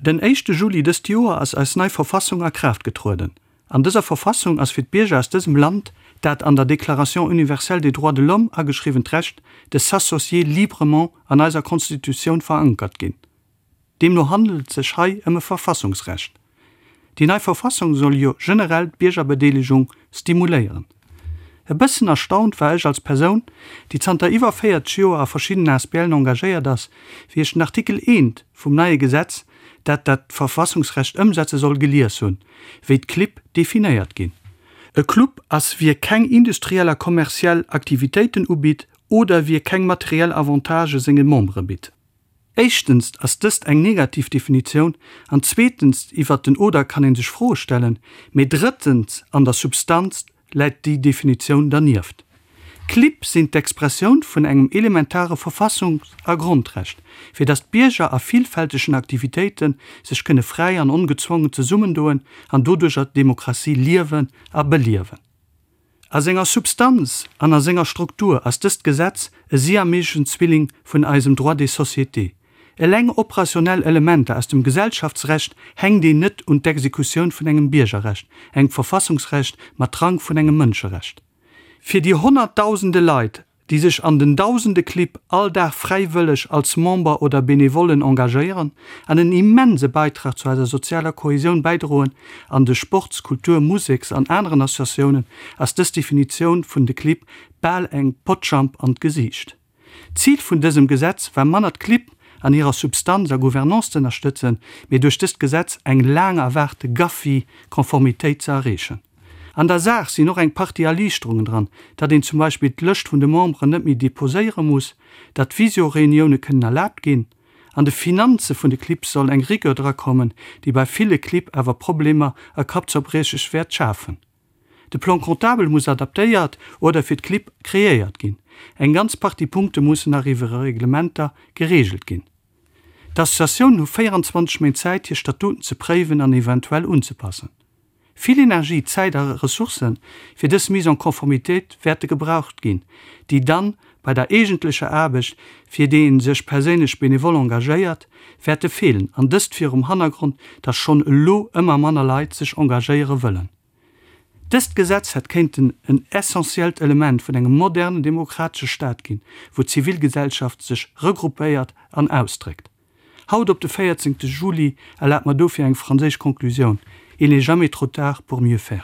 Den éischte Juli dëst Joer ass eis nei Verfassung a Kraaft getrueden. An dëser Verfassung ass fir d'Bierger aus dësem Land dat an der Déclaration universelle des droits de l'homme ageschriwwent Recht de s'associer librement an eiser Constitutioun verankert ginn. Deemno handelt et sech hei ëm e Verfassungsrecht. Déi nei Verfassung soll jo generell d'Biergerbedeelegung stimuléieren. E bëssen erstaunt war ech als Persoun, déi zanter iwwer 40 Joer a verschiddenen ASBLen engagéiert ass, wéi ech den Artikel I vum neie Gesetz, dat dat Verfassungsrecht ëmsetze soll, gelies hunn, wéi d'Clibb definéiert ginn. E Club ass wie keng industriell a kommerziell Aktivitéiten ubitt oder wie keng materiell Avantagë senge Membere bitt. Éischtens ass dëst eng negativ Definitioun an zweetens, iwwert den oder kann ee sech Froe stellen, mee drëttens, an der Substanz läit déi Definitioun dernieft. D'Clibb sinn d'Expressioun vun engem elementare Verfassungs a Grondrecht, fir datt d'Bierger a villfältegen Aktivitéite sech kënne fräi an ongezwongen zesummendoen an doduercher d'Demokratie liewen a beliewen. A senger Substanz an a senger Struktur ass dëst Gesetz e siameseschen Zwilling vun eisem Droit des sociétés. Eleng operationell Elementer aus dem Gesellschaftsrecht hänkt een net un d'Exekutioun vun engem Biergerrecht, engem Verfassungsrecht mat Rang vun engem Mënscherecht. Fir déi honnertdausende Leit, déi sech an den dausende Clibb all Dag fräiwëlleg als Member oder Benevollen engagéieren an en immense Beitrag zu eiser sozialer Kohesioun bäidroen an de Sports-, Kultur-, Museks an aneren Associatiounen, ass dës Definitioun vun de Clibb bal eng Potschamp an d'Gesiicht. D'Zil vun dësem Gesetz war manner d'Clibb an hirer Substanz a Gouvernance z'ënnerstëtzen, mee duerch dëst Gesetz eng laang erwaarte GAFI-Konformitéit ze erreechen. An der Saach sinn och eng Partie Erliichterungen dran, datt een zum Beispill d'Lëscht vun de Memberen net méi deposéiere muss, datt Visio-Reunioune kënnen erlaabt ginn. An de Finanze vun de Clibb soll eng Rigueur drakommen, déi bei ville Clibb awer Problemer a Kappzerbriecheg wäert schafen. De Plan comptable muss adaptéiert oder fir d'Clibb kreéiert ginn. Eng ganz Partie Punkte mussen nach iwwer Reglementer gereegelt ginn. D'Associatiounen hu 24 Méint Zäit, hir Statuten ze préiwen an eventuell unzepassen. Vill Energie, Zäit a Ressourcen fir dës Mise en conformité wäerte gebraucht ginn, déi dann bei der eegentlecher Aarbecht, fir déi een sech perséinlech benevol engagéiert, wäerte feelen, an dëst virum Hannergrond, dass schonn elo ëmmer manner Leit sech engagéiere wëllen. Dëst Gesetz hätt kéinten en essentiellt Element vun engem modernen demokratesche Staat ginn, wou d'Zivilgesellschaft sech regroupéiert an ausdréckt. Haut op de 14 Juli erlaabt mer dofir eng franséisch Konklusioun, Il n'est jamais trop tard pour mieux faire.